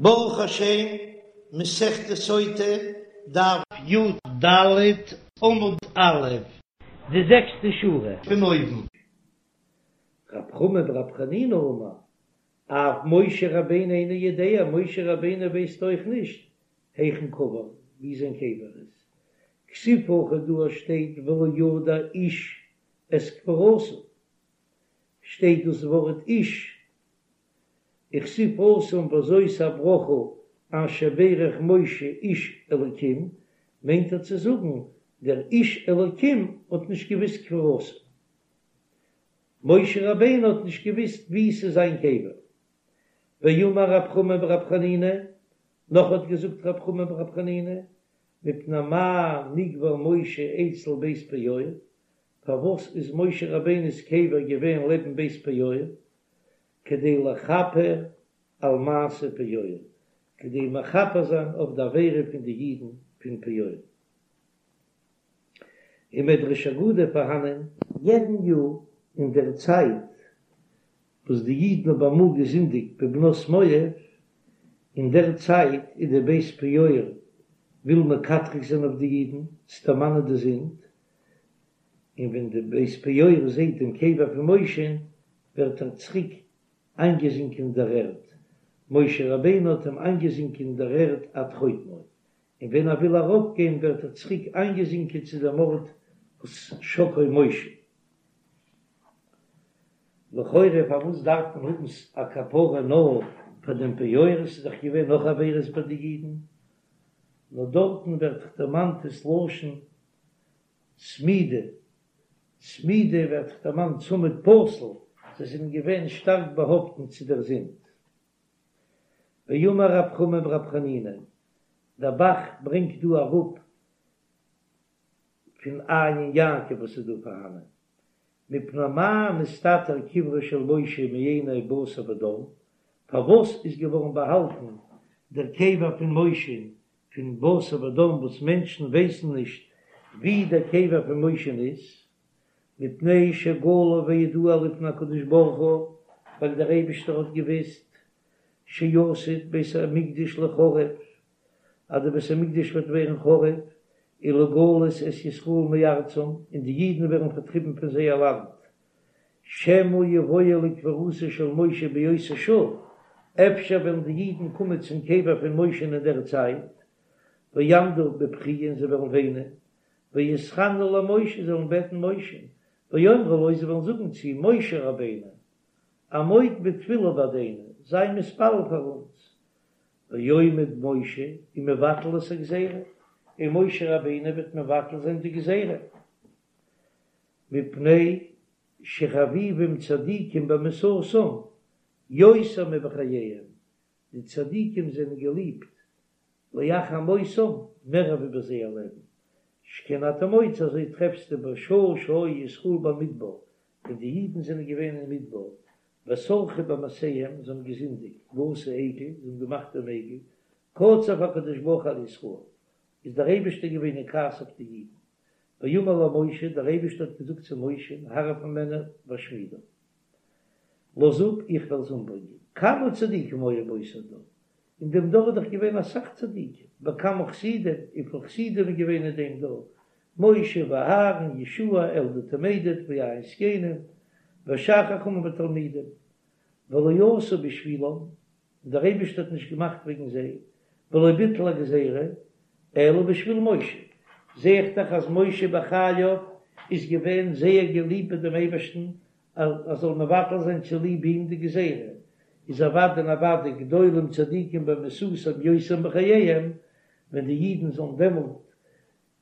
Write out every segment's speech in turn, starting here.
ברוך השם, מסכת סוטה, דף י"ד עמוד א', די זעקסטע שורה. פון אויבן. רב חמא ברב חנינא אמר, אף משה רבינו אינו יודע, משה רבינו ווייסט אויך נישט היכן קבור, ווי זיין קבר איז. כתיב הכא דא שטייט ולא ידע איש את קבורתו, שטייט דאס ווארט איש, וכתיב התם וזאת הברכה אשר ברך משה איש אלקים, מיינט ער צו זאגן דער איש אלקים האט נישט געוויסט קבורתו, משה רבינו האט נישט געוויסט ווי ס'איז זיין קבר. ואמר רב חמא ברב חנינא, נאך האט געזאגט רב חמא ברב חנינא, מפני מה נקבר משה אצל בית פעור, פארוואס איז משה רבינו'ס קבר געווען לעבן בית פעור? כדי לכפר על מעשה פעור, כדי מכפר זיין אויף די עבירה פון די אידן פון פעור. אין מדרש אגדה פארהאנען. יעדן יאר אין דער צייט וואס די אידן האבן אמאל געזינדיגט בבנות מואב, אין דער צייט איז די בית פעור וויל מקטרג זיין אויף די אידן צו דערמאנען די זינד, און ווען די בית פעור זעט דעם קבר פון משה'ן ווערט ער צוריק איינגעזינקען אין דער ערד, משה רבינו האט אים איינגעזינקען אין דער ערד עד חוטמו, און ווען ער וויל ארויפגיין ווערט ער צוריק איינגעזינקען צו דעם ארט וואס שקעו משה. לכאורה פארוואס דארף מען האבן א כפרה נאר פאר דעם פעור, עס איז דאך געווען נאך עבירות ביי די אידן, נאר דארטן ווערט דאך דערמאנט דאס לשון צמידה, צמידה ווערט דאך דערמאנט צמיד פתיל, זיי זענען געווען שטארק באהאפטן צו דער זינד. ואמר רב חמא ברב חנינא, דער ב"ח ברענגט דא אראפ פון עיין יעקב וואס איז דא פארהאנען, מפני מה נסתתר קברו של משה מעיני בשר ודם, פארוואס איז געווארן באהאלטן דער קבר פון משה פון בשר ודם וואס מענטשן ווייסן נישט ווי דער קבר פון משה'ן איז, מפני שגלוי וידוע לפני הקדוש ברוך הוא, ווייל דער אייבישטער האט געוויסט שעתיד בית המקדש ליחרב, אז דער בית המקדש וועט ווערן חרוב, ולגלות את ישראל מארצם, און די אידן ווערן פארטריבן פון זייער לאנד, שמא יבואו לקבורתו של משה באותה שעה, אפשר וועלן די אידן קומען צום קבר פון משה'ן אין דער צייט, ויעמדו בבכי און זיי וועלן וויינען, ויתחננו למשה זיי וועלן בעטן משה'ן, ויאמרו לו זיי וועלן זאגן צו אים, משה רבינו, עמוד בתפילה בעדנו, זיי מתפלל פאר אונז, ועומד משה ומבטל את הגזירה, און משה רבינו וועט מבטל זיין די גזירה. מפני שחביבים צדיקים במיתתם יותר מבחייהם, די צדיקים זענען געליבט לאחר מותם מער ווי ביי זייער לעבן, שכן אתה מוצא אזוי טרעפסטו בשעה שהיו ישראל במדבר, ווען די אידן זענען געווען אין מדבר, וסרחו במעשיהם, זיי האבן געזינדיגט, ועשו עגל, זיי האבן געמאכט דעם עגל, קצף הקדוש ברוך הוא על ישראל, איז דער אייבערשטער געווען אין כעס אויף די אידן, ויאמר למשה, דער אייבערשטער האט געזאגט צו משה, הרף ממני ואשמידם, לאז אפ, איך וועל זיי אומברענגען. כמה צדיקים היו באותו דור, אין דעם דור איז דאך געווען אסאך צדיקים, וכמה חסידים, וויפיל חסידים איז געווען אין דעם דור, משה ואהרן, יהושע, אלדד ומידד, ויין זקנים, ושאר חכמים ותלמידים, ולא עשה בשבילם, און דער אייבערשטער האט נישט געמאכט וועגן זיי, ולא ביטל הגזירה, אלא בשביל משה, זע איך דאך אז משה בחייו איז געווען זייער געליבט ביי דעם אייבערשטן, אז ער זאל מבטל זיין צוליב אים די גזירה, איז אוודאי און אוודאי גדולים צדיקים במיתתם יותר מבחייהם, ווען די אידן זאלן דעמאלט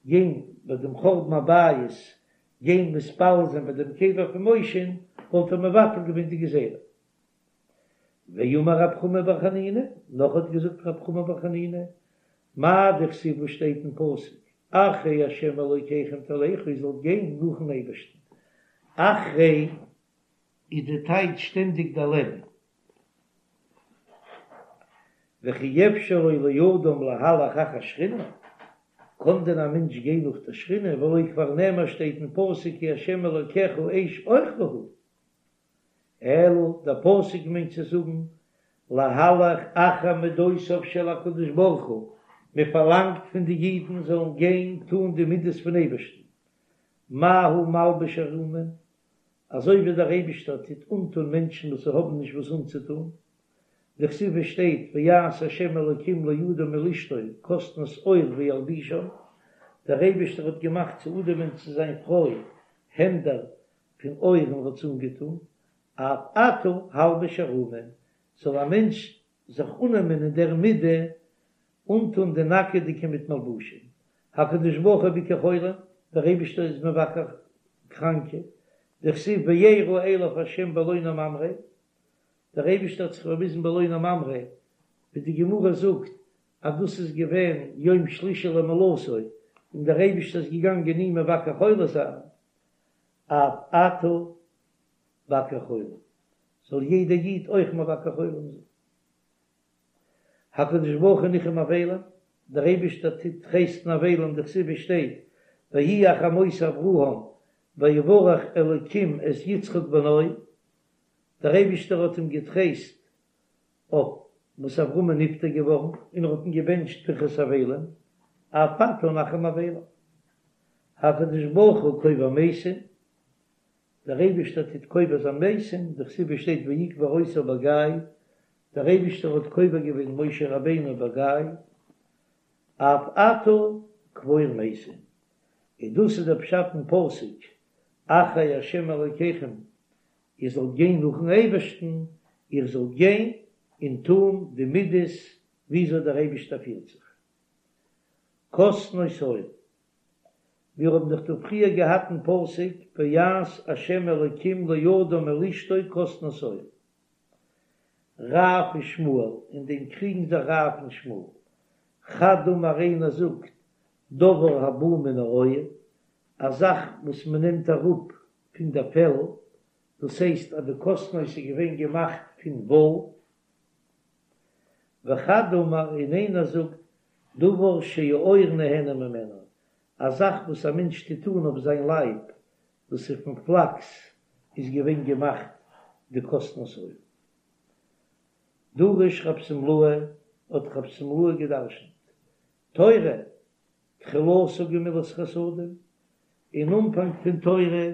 גיין ביי דעם חורבן הבית גיין מתפלל זיין ביי דעם קבר פון משה'ן, וואלט ער מבטל געווען די גזירה. ואמר רב חמא בר חנינא, נאך האט געזאגט רב חמא בר חנינא, מאי דכתיב וואס שטייט אין פסוק, אחרי ה' אלוקיכם תלכו איר זאלט גיין נאכן אייבערשטן, אחרי איז די טייטש שטענדיג דערלעבן, וכי אפשר לו לאדם להלך אחר שכינה, קען דען א מענטש גיין נאך דער שכינה, והלא כבר נאמר שטייט אין פסוק כי ה' אלוקיך אש אוכלה הוא. אלא דער פסוק מיינט צו זאגן. להלך אחר מדותיו של הקדוש ברוך הוא, מען פארלאנגט פון די אידן זאלן גיין טון די מידות פון אייבערשטן, מה הוא מלביש ערומים, אזוי ווי דער אייבישטער טוט אנטון מענטשן וואס האבן נישט וואס אנצוטון, דכתיב עס שטייט ויעש ה' אלקים לאדם ולאשתו כתנות עור וילבישם, דער אייבישטער האט געמאכט צו אדם און צו זיין פרוי העמדער פון עור און האט זיי אנגעטון, אף אתה הלבש ערומים, זאל א מענטש זיך אננעמען אין דער מידה אנטון די נאקעדיגע מיט מלבושים, הקדוש ברוך הוא ביקר חולים, דער אייבישטער איז מבקר קראנקע, דכתיב וירא אליו ה' באלוני ממרא, דער אייבישטער האט זיך באוויזן באלוני ממרא, ווי די גמרא זאגט אז דאס איז געווען יום שלישי למילתו, און דער אייבישטער איז געגאנגען אים מבקר חולה זיין, אף אתה בקר חולים, זאל יעדער איד אויך מבקר חולים זיין. הקדוש ברוך הוא ניחם אבלים, דער אייבישטער טוט טרייסטן אבלים, דכתיב עס שטייט ויהי אחרי מות אברהם ויברך אלקים את יצחק בנו, דער אייבישטער האט אים געטרייסט אויף וואס אברהם איז נפטר געווארן, און ער האט אים געבענטשט ברכת אבלים, אף אתה נחם אבלים. הקדוש ברוך הוא קובר מתים, דער אייבישטער טוט קובר זיין מתים, דכתיב עס שטייט ויקבר אותו בגיא, דער אייבישטער האט קובר געווען משה רבינו בגיא, אף אתה קבור מתים, און דאס איז דער פשט אין פסוק אחרי ה' אלוקיכם, איר זאלט גיין נאכן אייבערשטן, איר זאלט גיין און טון די מידות וויאזוי דער אייבישטער פירט זיך. כתנות עור, מיר האבן דאך דא פריער געהאט אין פסוק ויעש ה' אלוקים לאדם ולאשתו כתנות עור. רב ושמואל, אין דעם קריגן זיך רב און שמואל. חד אמר איינער זאגט דבר הבא מן העור, א זאך וואס מען נעמט אראפ פון דער פעל, דאס הייסט אז די כתנות איז געווען געמאכט פון וואל. וחד אמר און איינער זאגט דבר שהעור נהנה ממנו, א זאך וואס א מענטש טוט אן אויף זיין לייב, דאס איז פון פלאקס איז געווען געמאכט די כתנות עור. דרש רב שמלאי, האט רב שמלאי געדרשנט, תורה, תחילתה גמילות חסדים, אין אנפאנג פון תורה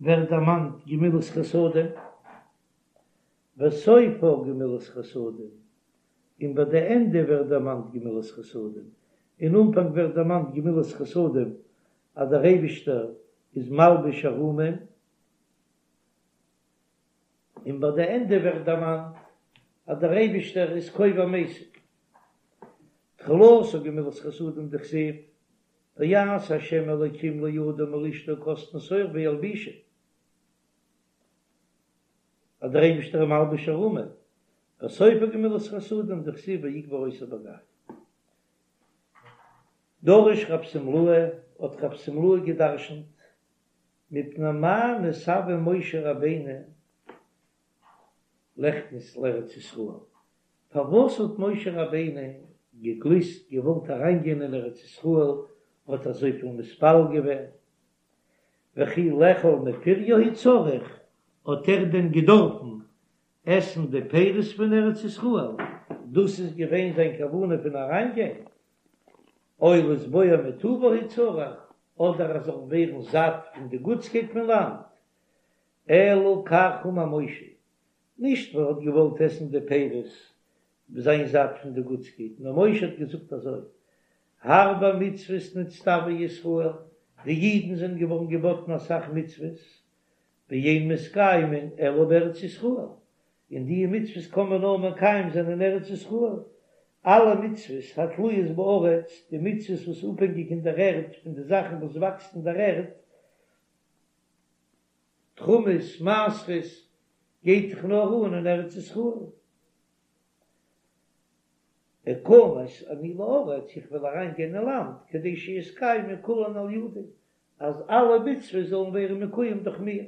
ווערט דערמאנט גמילות חסדים, וסופה גמילות חסדים, און ביי די ענדע ווערט דערמאנט גמילות חסדים, אין אנפאנג ווערט דערמאנט גמילות חסדים אז דער אייבישטער איז מלביש ערומים, און ביי די ענדע ווערט דערמאנט אז דער אייבישטער איז קובר מתים. תחילתה גמילות חסדים דכתיב ויעש ה' אלוקים לאדם ולאשתו כתנות עור וילבישם. אז דער אייבישטער איז מלביש ערומים, וסופה גמילות חסדים דכתיב ויקבר אותו בגיא. דרש רב שמלאי, האט רב שמלאי געדרשנט, מפני מה נתאוה משה רבינו ליכנס לארץ ישראל, פארוואס האט משה רבינו געגליסט געוואלט אריינגיין אין ארץ ישראל, האט אזויפיל מתפלל געווען, וכי לאכול מפריה הוא צריך, האט ער דען געדארפן עסן די פירות פון ארץ ישראל, דאס איז געווען זיין כוונה פון אריינגיין, או לשבוע מטובה הוא צריך, אדער ער זאל ווערן זאט פון די גוטסקייט פון לאנד, אלא כך אמר משה, נישט ווייל ער האט געוואלט עסן די פירות זיין זאט פון די גוטסקייט, נאר משה האט געזאגט אזוי, הרבה מצוות נצטוו ישראל, די אידן זענען געווארן געבאטן אסאך מצוות, ואין מתקיימין אלא בארץ ישראל, און די מצוות קען מען נאר מקיים זיין אין ארץ ישראל, אלע מצוות התלויות בארץ, די מצוות וואס איז אפהענגיק אין דער ערד, פון די זאכן וואס וואקסט אין דער ערד, תרומות, מעשרות, גייט דאך נאר אן אין ארץ ישראל. אכנס אני לארץ, איך וועל אריין גיין אין לאנד, כדי שיתקיימו כולן על ידי, אז אלע מצוות זאלן ווערן מקוים דורך מיר.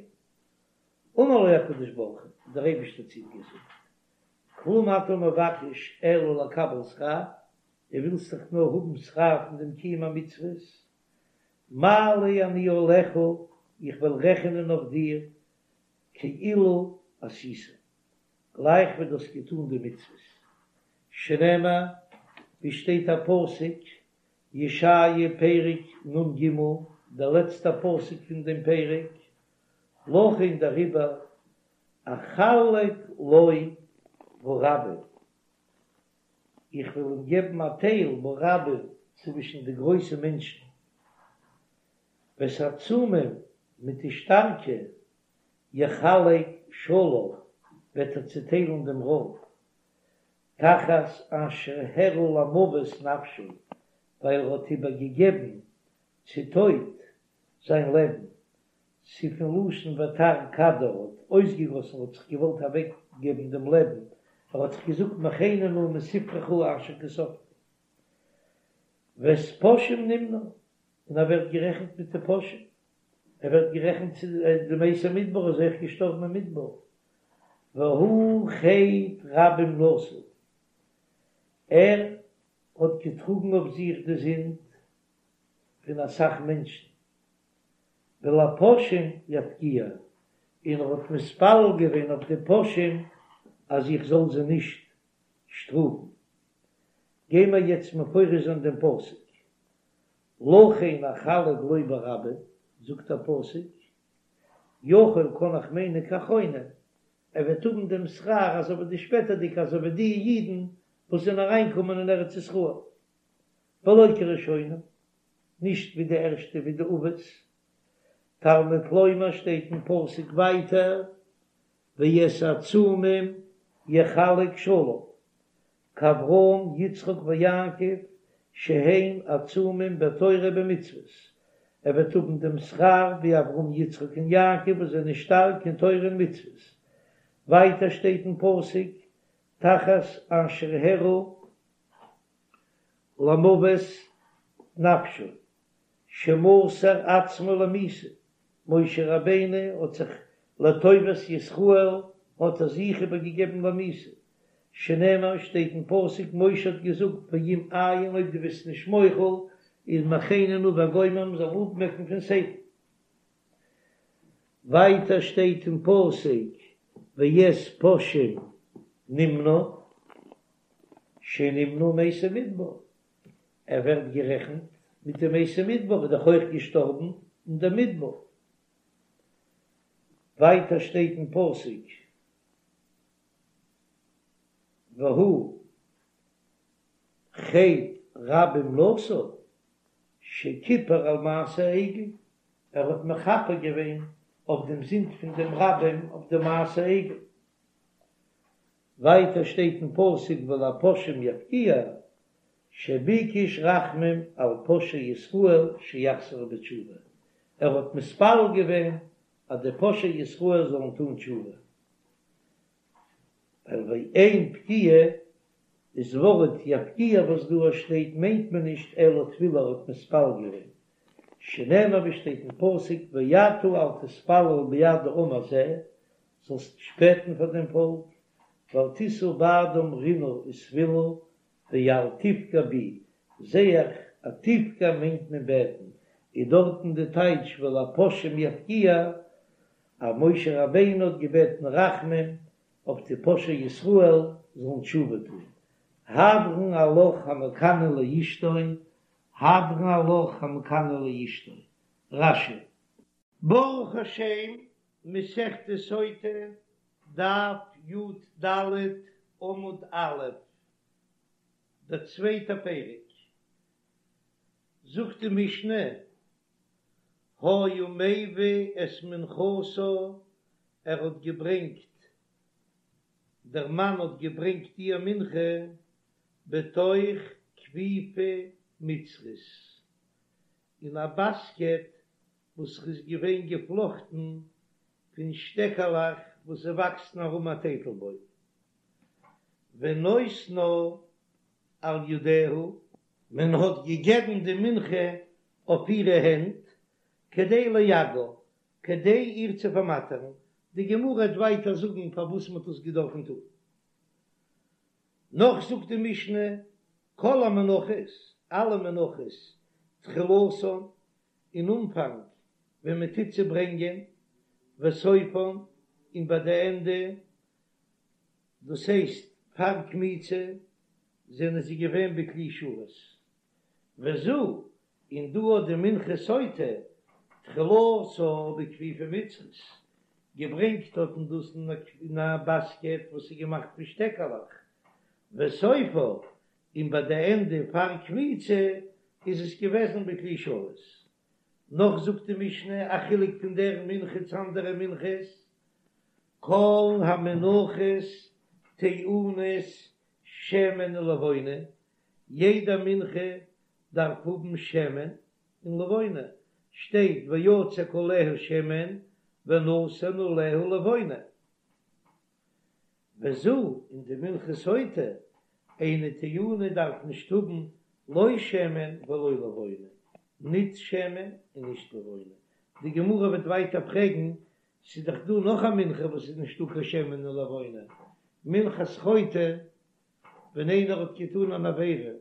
אמר לו הקדוש ברוך הוא, דער אייבערשטער האט צו אים געזאגט, כלום אתה מבקש אלא לקבל שכר, דו ווילסט דאך נאר האבן שכר פון דעם קיום המצוות, מעלה אני עליך, איך וועל רעכענען אויף דיר כאילו עשית. גלייך ווי דו האסט געטאן די מצוות. שנאמר, ווי שטייט א פסוק, ישעיה פרק נ"ג, דער לעצטער פסוק פון דעם פרק, לכן דעריבער אחלק לו ברבים, איך וועל אים געבן א טייל ברבים צווישן די גרויסע מענטשן, ואת העצומים מיט די שטארקע, יחלק שלל, וועט ער צעטיילן דעם רויב, תחת אשר הרעה למוות נפשו, ווייל ער האט איבערגעגעבן צו טויט זיין לעבן, ס'איז פון לשון ותער כדה, האט אויסגעגאסן, האט זיך געוואלט אוועקגעבן דעם לעבן, ער האט זיך געזאגט מחני נא מספרך אשר כתבת. ואת פושעים נמנה, און ער ווערט גערעכנט מיט די פושעים, ער ווערט גערעכנט צו די מתי מדבר, איז אויך געשטארבן אין מדבר, והוא חטא רבים נשא, ער האט געטראגן אויף זיך די זינד פון אסאך מענטשן, ולפושעים יפגיע, און ער האט מתפלל געווען אויף די פושעים אז איך זאל זיי נישט שטראפן. גיימער יעצט מפרש זיין דעם פסוק, לכן אחלק לו ברבים, זאגט דער פסוק, יכול קען איך מיינען כאחרונים, ער וועט האבן דעם שכר אזוי ווי די שפעטערדיגע אזוי ווי די אידן וואס זענען אריינגעקומען אין ארץ ישראל, ולא כראשונים, נישט ווי די ערשטע ווי די אבות, תלמוד לומר שטייט אין פסוק ווייטער ואת העצומים יחלק שלל, כאברהם יצחק ויעקב שהם עצומים בתורה ובמצוות, ער וועט האבן דעם שכר ווי אברהם יצחק און יעקב וואס זענען שטארק אין תורה און מצוות, ווייטער שטייט אין פסוק תחת אשר הרעה למוות נפשו, שמסר עצמו למיתה, משה רבינו האט זיך לטובת ישראל האט ער זיך איבער געגעבן למיתה, שנאמר שטייט אין פסוק משה האט געזאגט ואם אין אויב דו ביסט נישט מוחל איז מחני נא וגומר מען זאל אפמעקן פון ספר. ווייטער שטייט אין פסוק ואת פושעים נמנה שנמנה עם מתי מדבר, ער ווערט גערעכנט מיט די מתי מדבר, איז דאך אויך געשטארבן אין דער מדבר. ווייטער שטייט אין פסוק והוא חטא רבים נשא שכיפר על מעשה העגל, ער האט מכפר געווען אויף דעם זינד פון דעם רבים אויף די מעשה עגל. ווייטער שטייט אין פסוק ולפושעים יפגיע, שביקש רחמים על פושעי ישראל שיחזרו בתשובה, ער האט מתפלל געווען אז די פושעי ישראל זאלן טון תשובה, ווייל ואין פגיעה איז ווארט יפגיע וואס דא שטייט מיינט מען נישט אלא תפילה ער האט מתפלל געווען, שנאמר ווי שטייט אין פסוק ואתה אל תתפלל בעד העם הזה, זאלסט נישט בעטן פאר דעם פאלק, ואל תשא בעדם רינה ותפילה, ואל תפגע בי, זע איך אז תפגע מיינט מען בעטן, איז דארטן די טייטש ולפושעים יפגיע, אז משה רבינו האט געבעטן רחמים אויף די פושעי ישראל זאלן תשובה טון, הדרן עלך המקנא לאשתו, הדרן עלך המקנא לאשתו, רש"י. ברוך השם, מסכת סוטה, דף י"ד, עמוד א', דער צווייטער פרק, זאגט די משנה, היה מביא את מנחתה, ער האט געברענגט, דער מאן האט געברענגט איר מנחה, בתוך כפיפה מצרית, אין א באסקעט וואס איז געווען געפלאכטן פון שטעקעלעך וואס וואקסן ארום א טייטלבוים, ונותנה על ידיה, מען האט געגעבן די מנחה אויף אירע הענט, כדי ליגעה, כדי איר צו פארמאטערן, די גמרא וועט ווייטער זאגן פארוואס מען האט עס געדארפן טון. נאך זאגט די משנה, כל המנחות, אלע מנחות, תחילתן, אין אנפאנג ווען מען טוט זיי ברענגען, וסופן, און ביי די ענדע. דאס הייסט פאר קמיצה זענען זיי געווען בכלי שרת, וזו, און דא האט די מנחת סוטה תחילתה בכפיפה מצרית, געברענגט האט מען דאס אין א באסקעט וואס איז געמאכט פון שטעקעלעך, וסופה, און ביי די ענדע פאר קמיצה איז עס געוועזן בכלי שרת. נאך זאגט די משנה א חילוק פון דער מנחה צו אנדערע מנחות, כל המנחות טעונות שמן ולבונה, יעדע מנחה דארף האבן שמן און לבונה, שטייט ויצק עליה שמן ונתן עליה לבונה. וזו, און די מנחת סוטה, אינה טעונה דארף נישט האבן לא שמן ולא לבונה, ניט שמן און נישט לבונה. די גמרא וועט ווייטער פרעגן, ס'איז דאך דא נאך א מנחה וואס איז נישטא קיין שמן און לבונה, מנחת חוטא, ווען איינער האט געטאן אן עבירה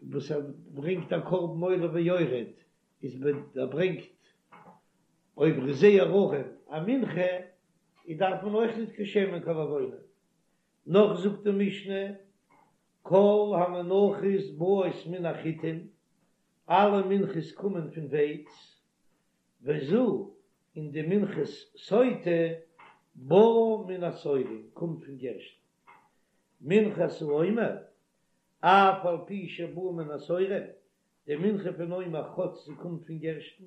וואס ער ברענגט א קרבן עולה ויורד, איז ווען ער ברענגט אויב ער איז זייער ארעם א מנחה, איז דארף מען אויך ניט קיין שמן קיין לבונה. נאך זאגט די משנה, כל המנחות באות מן החיטים, אלע מנחות קומען פון ווייץ, וזו, און די מנחת סוטה באה מן השעורים, קומט פון גערשטן. מנחת העומר, אף על פי שבאה מן השעורים, די מנחה פון עומר כאטש זי קומט פון גערשטן,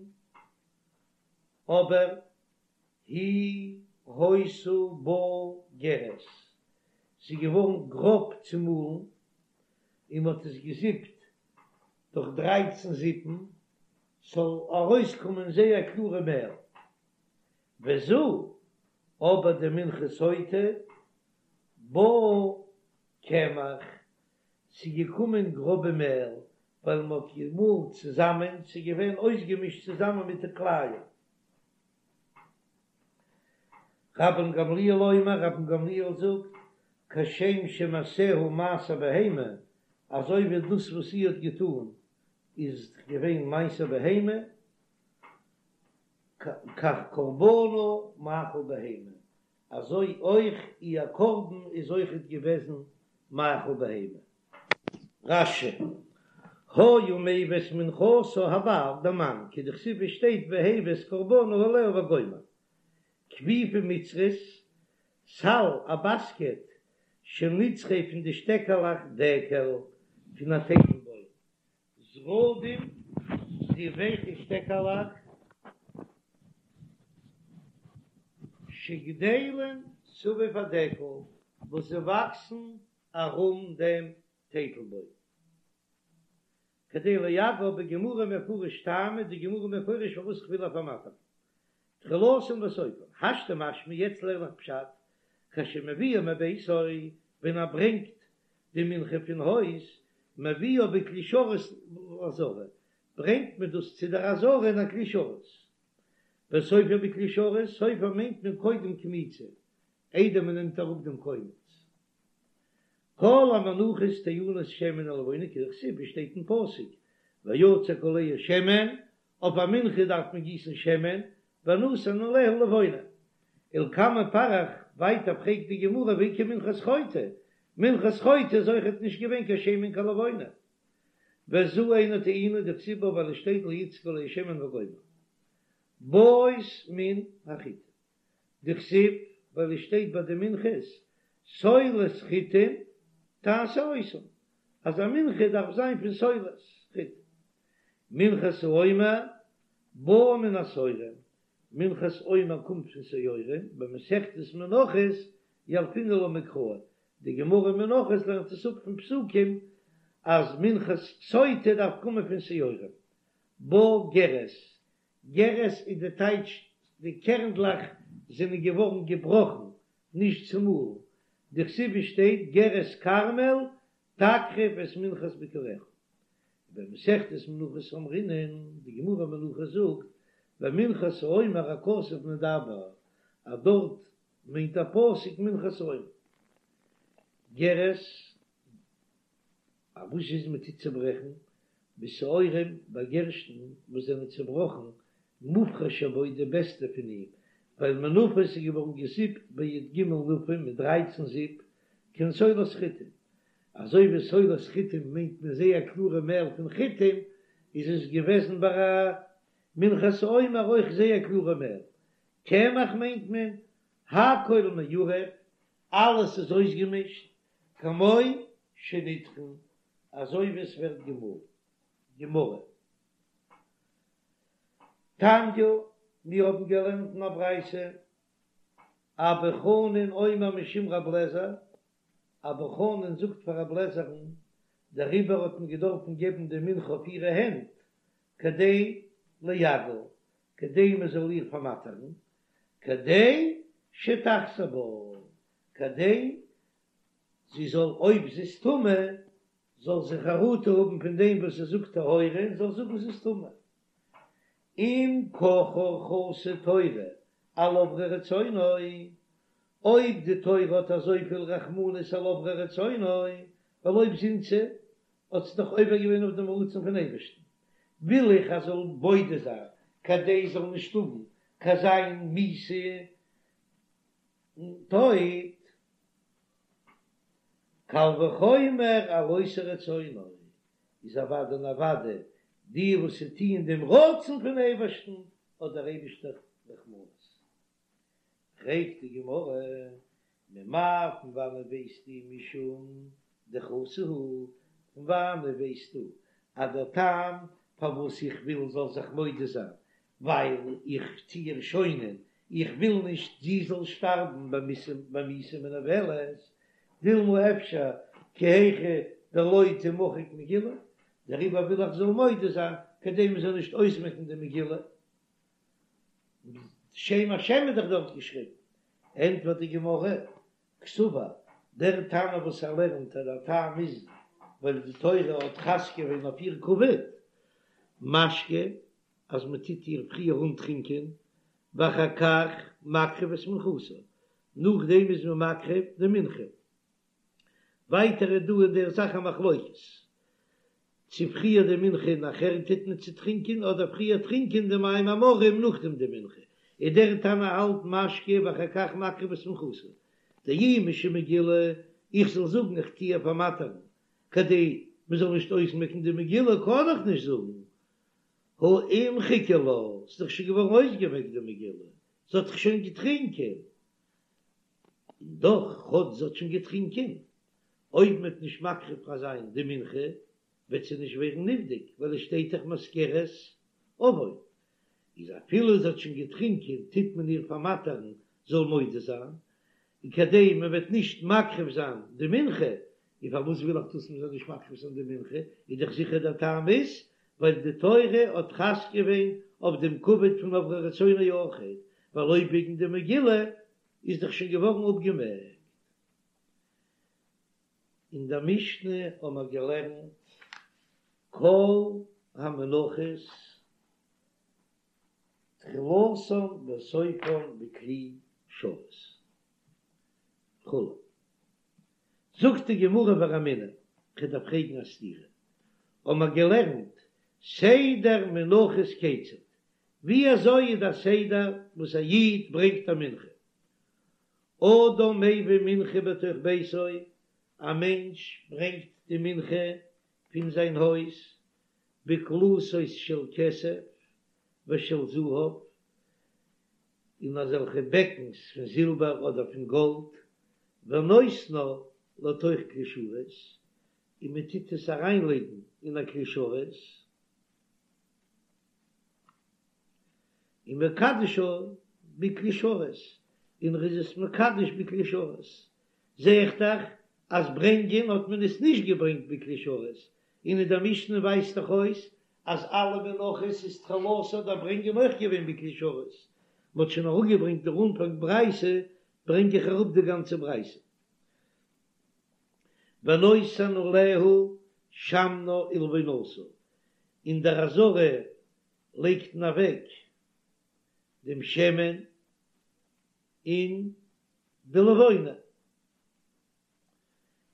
אבער היא היתה באה גרש, ס'איז געווארן גראב צומאלן, און מ'האט עס געזיפט דורך דרייצן זיפן, ס'זאל ארויסקומען זייער קלארע מעל. וזו, אבער די מנחת סוטה, באה קמח, ס'איז געקומען גראבע מעל, ווייל מ'האט געמאלן צוזאמען, ס'איז געווען אויסגעמישט צוזאמען מיט די כלאים. רבן גמליאל אומר, רבן גמליאל זאגט, כשם שמעשיה מעשה בהמה, אזוי ווי דאס וואס זי האט געטאן איז געווען מעשה בהמה, כך קרבנה מאכל בהמה, אזוי אויך איר קרבן איז אויכעט געוועזן מאכל בהמה. רש"י, היה מביא את מנחתה הבעל, דער מאן, כדכתיב ווי שטייט והביא את קרבנה העליה וגומר. כפיפה מצרית, סל, א באסקעט, של נצחי פון די שטעקעלעך דקל, פון א טייטלבוים. זרדים, די ווייכע שטעקעלעך, שגדלים סביב הדקל, וואס זיי וואקסן ארום דעם טייטלבוים. כדי לאגרה בגמרא מפרש טעמא, די גמרא מפרש פארוואס כ'וויל איר פארמאטערן. תחילתן וסופן, השתא משמע, יעצט לערן איך פשט, כשמביאה מביתו, ווען ער ברענגט די מנחה פון הויז, מביאה בכלי שרת לעזרה, ברענגט מען דאס צו דער עזרה אין א כלי שרת. וסופה בכלי שרת, סופה מיינט מען קודם קמיצה, איידער מען נעמט אראפ דעם קומץ. כל המנחות טעונות שמן ולבונה כדכתיב ווי שטייט אין פסוק ויצק עליה שמן, אויף א מנחה דארף מען גיסן שמן, ונתן עליה לבונה. ולקמן פריך, ווייטער פרעגט די גמרא והאיכא מנחת חוטא, מנחת חוטא איז אויכעט נישט געווען קיין שמן קיין לבונה. וזו אינה טעונה דכתיב בה ווייל עס שטייט לא יצק עליה שמן וגומר. באות מן החיטה. דכתיב ווייל עס שטייט ביי די מנחות סולת חיטים תעשה אותם אז א מנחה דארף זיין פון סולת חיטים. מנחת העומר באה מן השעורים, מנחת עומר קומט פון שעורים, במסכת מנחות ילפינן לה מקרא, די גמרא אין מנחות לערנט עס אפ פון פסוקים אז מנחת סוטה דארף קומען פון שעורים. באה גרש, גרש איז די טייטש די קערנדלעך זענען געווארן געבראכן, נישט צומאלן, דכתיב ווי שטייט גרש כרמל תקריב את מנחת ביכוריך. ובמסכת מנחות אמרינן, די גמרא מנחות זאגט, במנחת העומר הכתוב מדבר, אז דארט מיינט דער פסוק מנחת העומר. גרש א וואס איז מען טוט צוברעכן בשעורים ביי גערשטן וואס זענען צובראכן מובחר שבו די בעסטע פון אים, ווייל מנופה איז געווארן געזיפט בי"ג נפים מיט דרייצן זיפ. כעין סולת חיטים, אזוי ווי סולת חיטים מיינט מען זייער קלארע מעל פון חיטים, איז עס געוועזן ביי א מנחת העומר אויך זייער קלארע מעל. קמח מיינט מען הכל מעורב, אלעס איז אויסגעמישט, כמו שנטחן, אזוי ווי עס ווערט געמאלן. גמרא. תניא, מיר האבן געלערנט אין א ברייתא, אבא חנין אומר משום רב לעזער, אבא חנין זאגט פאר רב לעזער'ן, דעריבער האט מען געדארפן געבן די מנחה אויף אירע הענט, כדי לייגעה, כדי מען זאל איר פארמאטערן, כדי שתחזור בה, כדי זי זאל אויב זי איז טמא, זאל זי חרטה האבן פון דעם וואס זי זאגט טהורה און זאל זאגן זי איז טמא. אם ככה חסה תורה על עוברי רצונו, אויב די תורה האט אזויפיל רחמנות על עוברי רצונו, ווייל אויב זינתה האט זי דאך עובר געווען אויף דעם רצון פון אייבערשטן, וויל איך אז זאל מודה זיין כדי זאל נישט האבן קיין זיין מיתה און טויט. קל וחומר על עושי רצונו, איז אוודאי און אוודאי די וואס טוען דעם רצון פון אייבערשטן האט דער אייבערשטער רחמנות. פרעגט די גמרא, ממאי פון וואנעט ווייסטו משום דחסה הוא, פון וואנעט ווייסטו אז דער טעם פארוואס איך וויל זאל זיך מודה זיין ווייל איך טו איר שוינען, איך וויל נישט זי זאל שטארבן במיתה מנוולת, דילמא אפשר כי היכי דלא תמחק מגילה, דעריבער וויל איך זאל מודה זיין כדי מען זאל נישט אויסמעקן די מגילה, שם השם איז דאך דארט געשריבן, ענטפערט די גמרא, קסבר, דער תנא וואס ער לערנט אז דער טעם איז ווייל די תורה האט חס געווען אויף איר כבוד, משקה, אז מען טוט איר פריער אנטרינקען, ואחר כך מקריב את מנחתה, נאכדעם איז מען מקריב די מנחה. ווייטער איז דא אין דער זאך א מחלוקת, צו פריער די מנחה און נאכער טוט מען צוטרינקען, אדער פריער טרינקען די מים המרים נאכדעם די מנחה, איז דער תנא האלט משקה ואחר כך מקריב את מנחתה, דאי משום מגילה, איך זאל זאגן איך טו איר פארמאטערן כדי מען זאל נישט אויסמעקן די מגילה קען איך נישט זאגן, הא אימחיקא לה, ס'איז דאך שוין געווארן אויסגעמעקט די מגילה, זי האט דאך שוין געטרינקען, און דאך כאטש זי האט שוין געטרינקען, אויב מ'וועט נישט מקריב זיין די מנחה וועט זי נישט ווערן נבדק, ווייל עס שטייט דאך מזכרת עון, איז אפילו זי האט שוין געטרינקען טוט מען איר פארמאטערן זאל מודה זיין, און כדי מען וועט נישט מקריב זיין די מנחה, און פארוואס וויל איך דאס מען זאל נישט מקריב זיין די מנחה, איז דאך זיכער דער טעם איז ווייל די תורה האט חס געווען אויף דעם כבוד פון עוברי רצונו אויכעט, ווייל אויב וועגן די מגילה איז דאך שוין געווארן אפגעמעקט. אין דער משנה האבן מיר געלערנט כל המנחות תחילתן וסופן בכלי שרת וכו'. זאגט די גמרא ורמינהו, כ'דארף פרעגן א סתירה, האבן מיר געלערנט סדר מנחות כיצד, ווי אזוי איז דער סדר וואס א איד ברענגט א מנחה? אדם מביא מנחה בתוך ביתו, א מענטש ברענגט די מנחה פון זיין הויז, בקלתות של כסף ושל זהב, אין אזעלכע בעקנס פון זילבער אדער פון גאלד, ונותנה לתוך כלי שרת, און מען טוט עס אריינלייגן אין א כלי שרת, ומקדשה בכלי שרת, און ער איז עס מקדש בכלי שרת, זע איך דאך אז ברענגען האט מען עס נישט געברענגט בכלי שרת, און אין דער משנה ווייזט דאך אויס אז אלע מנחות איז תחילתן דער ברענגען אויך געווען בכלי שרת, מען האט שוין אראפגעברענגט דער אנפאנג ברייתא, ברענג איך אראפ די גאנצע ברייתא. ונותן עליה שמנה ולבונתה, אין דער עזרה לייגט מען אוועק דעם שמן און די לבונה.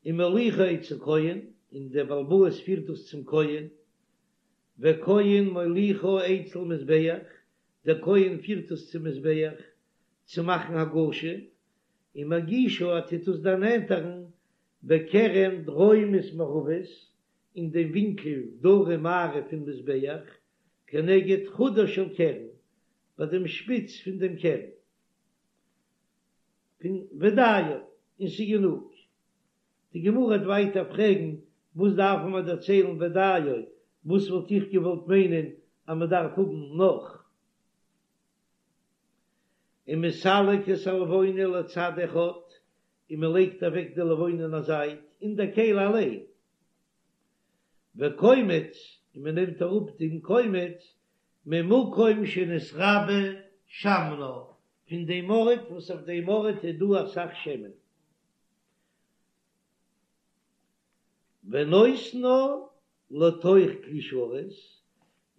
ומוליכה אצל כהן, און דער בעל הבית פירט דאס צום כהן, וכהן מוליכה אצל מזבח, דער כהן פירט עס צום מזבח צו מאכן הגשה, ומגישה ער טוט עס דערנענטערן. בקרן דרומית מערבית, אין דעם ווינקל דרום מערב פון מזבח, כנגד חודה של קרן, ביי דעם שפיץ פון דעם קרן. פון ודיו, און ס'איז גענוג. די גמרא וועט ווייטער פרעגן, וואס דארף מען דערציילן ודיו, וואס וואלט איך געוואלט מיינען אז מען דארף האבן נאך? ומסלק את הלבונה לצד אחד, און מען לייגט אוועק די לבונה אין א זייט, אין דער כלי אליין. וקומץ, און מען נעמט אראפ דעם קומץ, ממקום שנתרבה שמנה, פון דעם ארט וואס אויף דעם ארט איז דא אסאך שמן. ונותנה לתוך כלי שרת,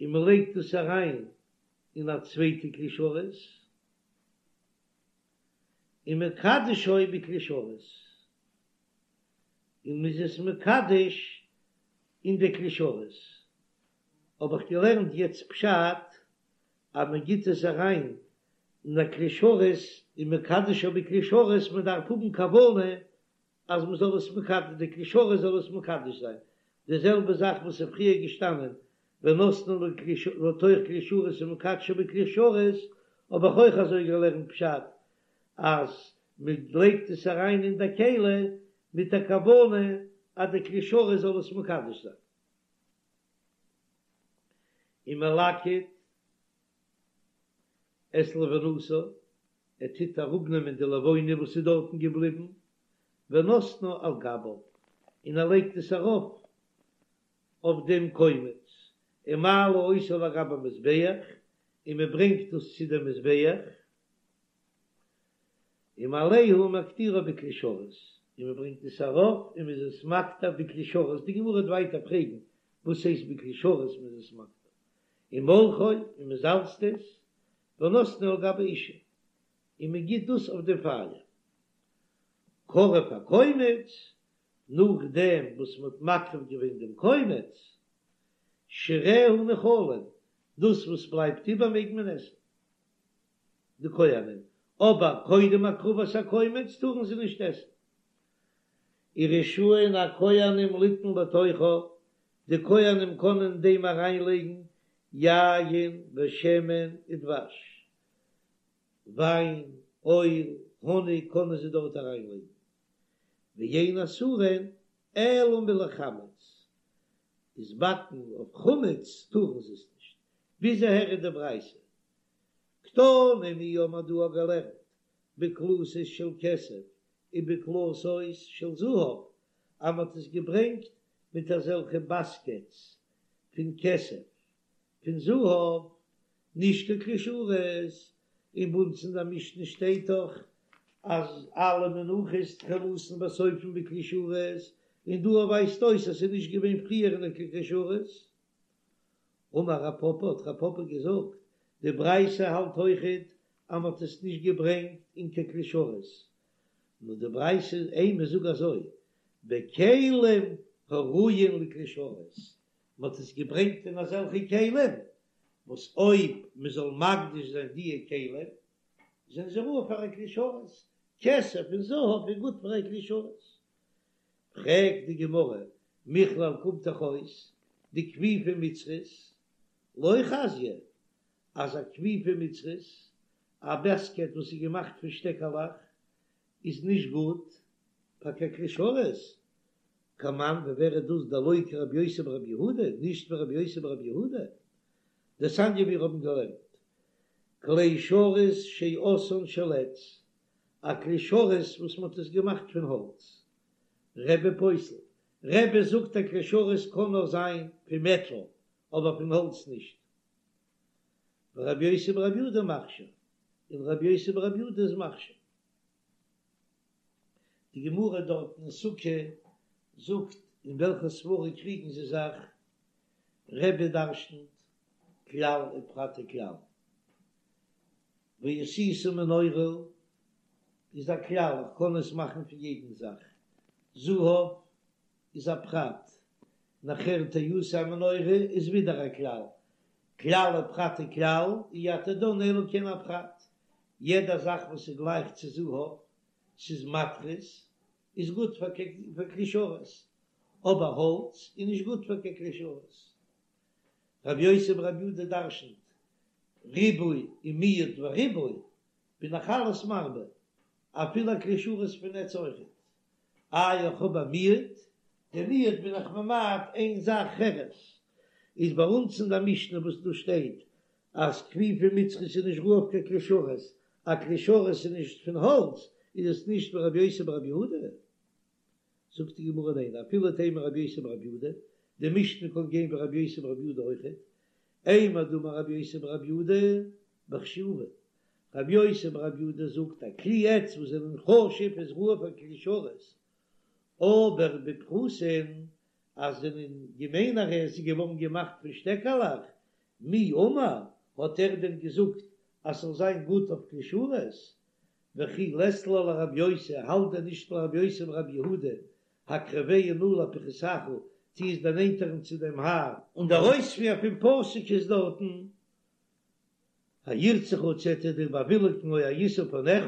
און מען לייגט עס אריין אין א צווייטע כלי שרת, ומקדשו בכלי שרת, און מען איז עס מקדש אין די כלי שרת. האב איך געלערנט יעצט פשט אז מען גיט עס אריין אין א כלי שרת ומקדשו בכלי שרת, מען דארף האבן כוונה אז מען זאל עס מקדש, די כלי שרת זאל עס מקדש זיין, די זעלבע זאך וואס איז פריער געשטאנען ונתנה לתוך כלי שרת ומקדשו בכלי שרת, האב איך אויך אזוי געלערנט פשט אז מען לייגט עס אריין אין די כלי מיט א כוונה אז די כלי שרת זאל עס מקדש זיין. ומלקט את לבונתה, ער טוט אראפנעמען די לבונה וואס איז דארטן געבליבן, ונותנה על גביו, און ער לייגט עס ארויף אויף דעם קומץ, ומעלה אותו לגבי המזבח, און מען ברענגט דאס צו דעם מזבח, ומעלהו ומקטירו בכלי שרת, און מען ברענגט עס ארויף און מען איז עס מקטיר בכלי שרת, די גמרא וועט ווייטער פרעגן וואס הייסט בכלי שרת מען איז עס מקטיר, ומולחו, און מען זאלצט עס, ונותנו על גבי האשה, און מען גיט דאס אויף דעם פייער. קרב הקומץ, נאכדעם וואס מען האט מקריב געווען דעם קומץ, שיריה נאכלין, דאס וואס בלייבט איבער מעג מען עסן. די כהנים, אבער קודם הקרבת הקומץ טארן זיי נישט עסן. ורשאין הכהנים ליתן לתוכה, די כהנים קענען אין דעם אריינלייגן יין ושמן ודבש, וויין, אויל, האניג קענען זיי דארט אריינלייגן. ואין אסורין אלא מלחמץ, איז באקן אויף חמץ טארן זיי עס נישט. ביז אהער איז די ברייתא. קתני מיר האבן דא געלערנט בקלתות של כסף ובקלתות של זהב, אז מען האט עס געברענגט מיט אזעלכע באסקעטס פון כסף פון זהב, נישט קיין כלי שרת, און ביי אונז אין די משנה שטייט דאך אז אלע מנחות תחילתן וסופן בכלי שרת, און דא ווייזט אויס אז ס'איז נישט געווען פריער אין קיין כלי שרת. אמר רב פפא, האט רב פפא געזאגט, די ברייתא האלט אויכעט אז מ'האט עס נישט געברענגט אין קיין כלי שרת, נאר די ברייתא אימא זאג אזוי, בכלים הראויין לכלי שרת, מ'האט עס געברענגט אין אזעלכע כלים וואס אויב מ'זאל מקדיש זיין דיע כלים זענען זיי ראוי פאר א כלי שרת, כסף און זהב איז גוט פאר א כלי שרת. פרעגט די גמרא, מכלל קומט דאך אויס דכפיפה מצרית לא חזיא, אז א כפיפה מצרית, א בעסקעט וואס איז געמאכט פון שטעקעלעך, איז נישט גוט פאר קיין כלי שרת, כמאן ווי ווער איז דאס דלא כרבי יוסי ברבי יהודה, נישט ווי רבי יוסי ברבי יהודה, דתניא מיר האבן געלערנט כלי שרת שעשאן של עץ, א כלי שרת וואס מען האט עס געמאכט פון האלץ. רבי פוסל, רבי זאגט א כלי שרת קען נאר זיין פון מעטאל אבער פון האלץ נישט. ורבי יוסי ברבי יהודה מכשיר, און רבי יוסי ברבי יהודה איז מכשיר. די גמרא דארט אין סוכה זאגט אין וועלכע סברא קריגן זיי זיך, רבי דרשנ'ט כלל ופרט וכלל. ועשית מנורה איז א כלל, איך קען עס מאכן פון יעדן זאך, זהב איז א פרט, נאכער תעשה המנורה איז ווידער א כלל, כלל ופרט וכלל, אי אתה דן אלא כעין הפרט, יעדע זאך וואס איז גלייך צו זהב, ס'איז מתכות. איז גוט פאר כלי שרת, אבער האלץ איז נישט גוט פאר קיין כלי שרת. רבי יוסי ברבי יהודה דרשנ'ט ריבוי און מיעוט וריבוי, בין איך אלעס מרבה, אפילו א כלי שרת פון עץ אויכעט. איי איך האב א מיעוט, די מיעוט בין איך ממעט איין זאך חרס, איז ביי אונז אין די משנה וואס דא שטייט אז כפיפה מצרית איז נישט ראוי אויף קיין כלי שרת, א כלי שרת איז נישט פון האלץ, איז עס נישט ווי רבי יוסי ברבי יהודה? זאגט די גמרא ניין, אפילו תימא רבי יוסי ברבי יהודה, די משנה קען גיין ווי רבי יוסי ברבי יהודה אויכעט, אימר דאמר רבי יוסי ברבי יהודה בחשובין, רבי יוסי ברבי יהודה זאגט א כלי עץ וואס זענען חשוב איז ראוי פאר כלי שרת, אבער בפחותין אז זענען געמיינערע עס איז געווארן געמאכט פון שטעקעלעך, מי אמר, האט ער דען געזאגט אז ס'זאל זיין גוט אויף כלי שרת? וכי לית לה לרבי יוסי, האלט דען נישט רבי יוסי ברבי יהודה, הקרבהו נא לפחתך, טו עס דערנענטערן צו דעם האר. און דער אויספיר פון פסוק איז דארטן, הירצך צו ער וועט דיר באוויליגן או הישא פניך.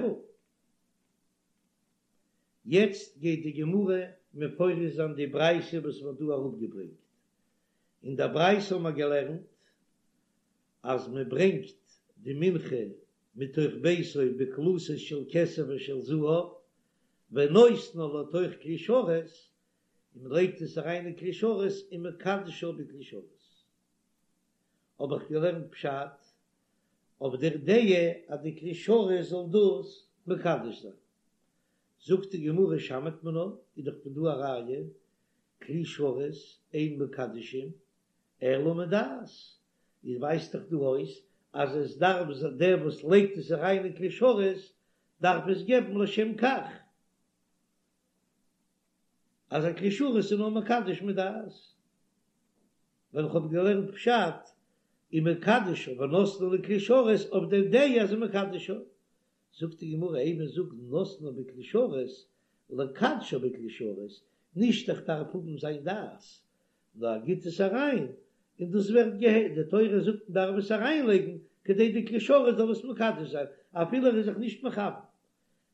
יעצט גייט די גמרא מפרש זיין די ברייתא וואס מ'האט דא אראפגעברענגט. אין דער ברייתא האבן מיר געלערנט אז מען ברענגט די מנחה מתוך ביתו בקלתות של כסף ושל זהב, ונותנה לתוך כלי שרת, און מען לייגט עס אריין אין כלי שרת ומקדשה בכלי שרת. האב איך געלערנט פשט אויף דער דעה אז די כלי שרת זאל דאס מקדש זיין. זאגט די גמרא שמעת מינה, איז דאך פון דא א ראיה, כלי שרת אין מקדשין אלא מדעת, איז ווייזט דאך דא אויס אז עס דארף דער וואס לייגט עס אריין אין כלי שרת דארף עס געבן לשם כך, אז א כלי שרת איז נאר מקדש מדעת, ווייל איך האב געלערנט פשט ומקדשה ונותנה לכלי שרת אויף דער דעה אז ומקדשה, זאגט די גמרא אימא זאג נותנה בכלי שרת לקדשה בכלי שרת, נישט איך דארף האבן זיין דעת, נאר ער גיט עס אריין און דאס ווערט געהע די תורה זאגט מען דארף עס אריינלייגן כדי די כלי שרת זאל עס מקדש זיין אפילו ער איז זיך נישט מכוון.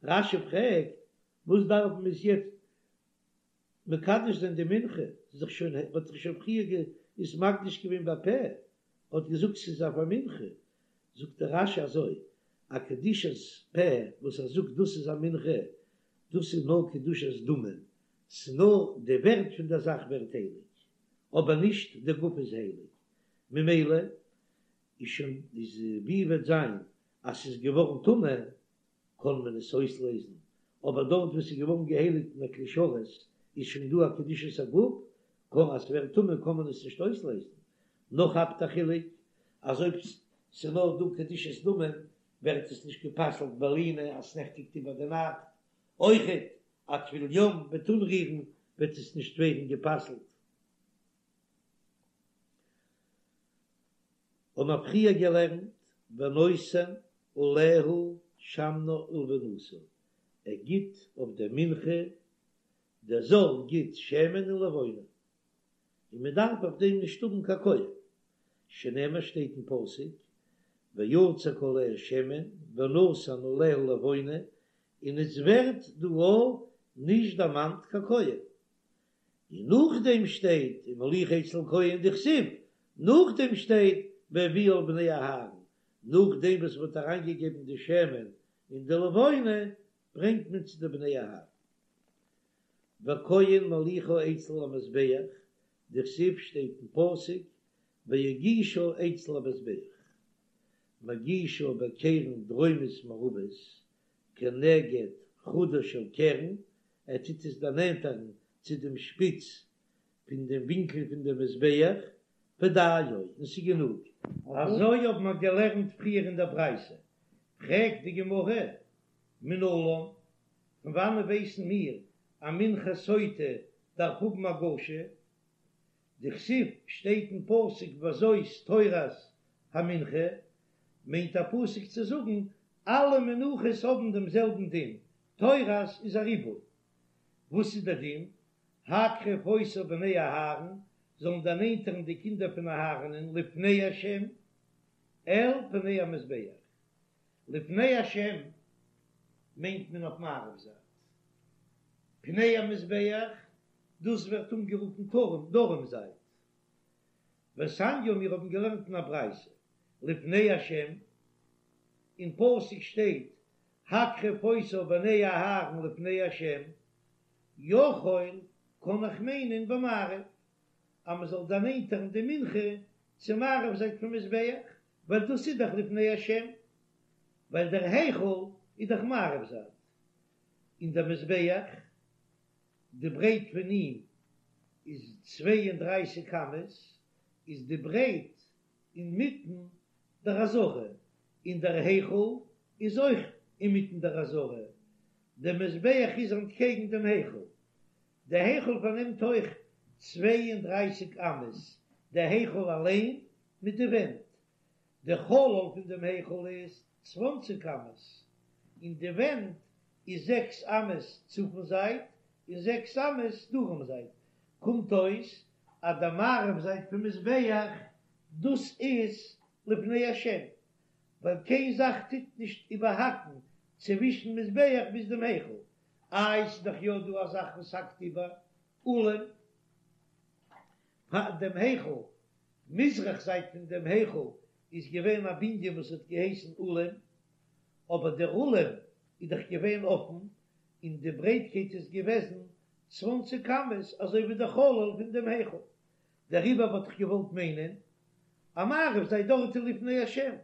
רש"י פרעגט וואס דארף מען עס יעצט מקדש זיין די מנחה, ס'איז דאך שוין האט זיך שוין פריער עס מקדיש געווען בפה, האט געזאגט ס'איז אויף א מנחה, זאגט דער רש"י אזוי, א קדושת פה וואס ער זאגט דאס איז א מנחה, דאס איז נאר קדושת דמים, ס'איז נאר די ווערט פון דער זאך ווערט הייליג, אבער נישט די גוף איז הייליג, ממילא איז שוין איז ווי וועט זיין אז ס'איז געווארן טמא קען מען עס אויסלעזן, אבער דארט וואו ס'איז געווארן געהייליגט אין א כלי שרת איז שוין דא א קדושת הגוף, קען אז ס'ווערט טמא קען מען עס נישט אויסלעזן. נאך האבט א חילוק אז אויב ס'איז נאר דא קדושת דמים ווערט עס נישט גע'פסל'ט בלינה אז ס'נעכטיגט איבער די נאכט, אויכעט א טבול יום וועט אנרירן וועט עס נישט ווערן גע'פסל'ט. האבן מיר פריער געלערנט ונותן עליה שמנה ולבונתה, ער גיט אויף דער מנחה, דער זר גיט שמן און לבונה, און מען דארף אויף דעם נישט האבן קיין כהן, שנאמר שטייט אין פסוק ויצק עליה שמן ונתן עליה לבונה, און עס ווערט דא אויך נישט דערמאנט קיין כהן, און נאכדעם שטייט ומוליכה אצל כהן דכתיב, נאכדעם שטייט והביאה אל בני אהרן, נאכדעם וואס מען האט אריינגעגעבן די שמן און די לבונה ברענגט מען צו די בני אהרן. וכהן מוליכה אצל המזבח, דכתיב שטייט אין פסוק והגישה אצל המזבח, מגישה בקרן דרומית מערבית כנגד חודה של קרן, ער טוט עס דערנענטערן צו דעם שפיץ פון דעם ווינקל פון דעם מזבח, ודיו, און ס'איז גענוג. אזוי האבן מיר געלערנט פריער אין דער ברייתא. פרעגט די גמרא, מנלן, פון וואנען ווייסן מיר אז מנחת סוטה דארף האבן הגשה? דכתיב שטייט אין פסוק וזאת תורת המנחה, מיינט א פסוק צו זאגן אלע מנחות האבן דעם זעלבן דין, תורת איז א ריבוי. וואס איז דער דין? הקרב אותה בני אהרן, זאלן דערנענטערן די קינדער פון אהרנ'ען לפני השם אל פני המזבח. לפני השם מיינט מען אויף מערב זייט. פני המזבח, דאס ווערט אנגערופן דרום, דרום זייט. ותניא מיר האבן געלערנט אין א ברייתא, לפני השם, אין פסוק שטייט הקרב אותה בני אהרן לפני השם, יכול קען איך מיינען במערב, אז מען זאל דערנענטערן די מנחה צו מערב זייט פון מזבח, ווייל דאס איז דאך לפני השם, ווייל דער היכל איז דאך מערב זייט, און דער מזבח, די ברייט פון אים איז 32 אמות, איז די ברייט אינמיטן דער עזרה, און דער היכל איז אויך אינמיטן דער עזרה, דער מזבח איז אנטקעגן דעם היכל, דער היכל פארנעמט אויך 32 אמות, דער היכל אליין מיט די ווענט, דער חלל פון דעם היכל איז צוואנציג אמות, און די ווענט איז זעקס אמות צפון זייט און זעקס אמות דרום זייט, קומט אויס אז די מערב זייט פון מזבח דאס איז לפני השם, ווייל קיין זאך טוט נישט איבערהאקן צווישן מזבח ביז דעם היכל, איי ס'איז דאך יא דא א זאך וואס האקט איבער, אולם פאר דעם היכל, מזרח זייט פון דעם היכל איז געווען א בנין וואס האט געהייסן אולם, אבער דער אולם איז דאך געווען אפן, און די ברייטקייט איז געוועזן צוואנציג אמות אזוי ווי דער חלל פון דעם היכל, דעריבער וואלט איך געוואלט מיינען אז מערב זייט דארט איז לפני השם,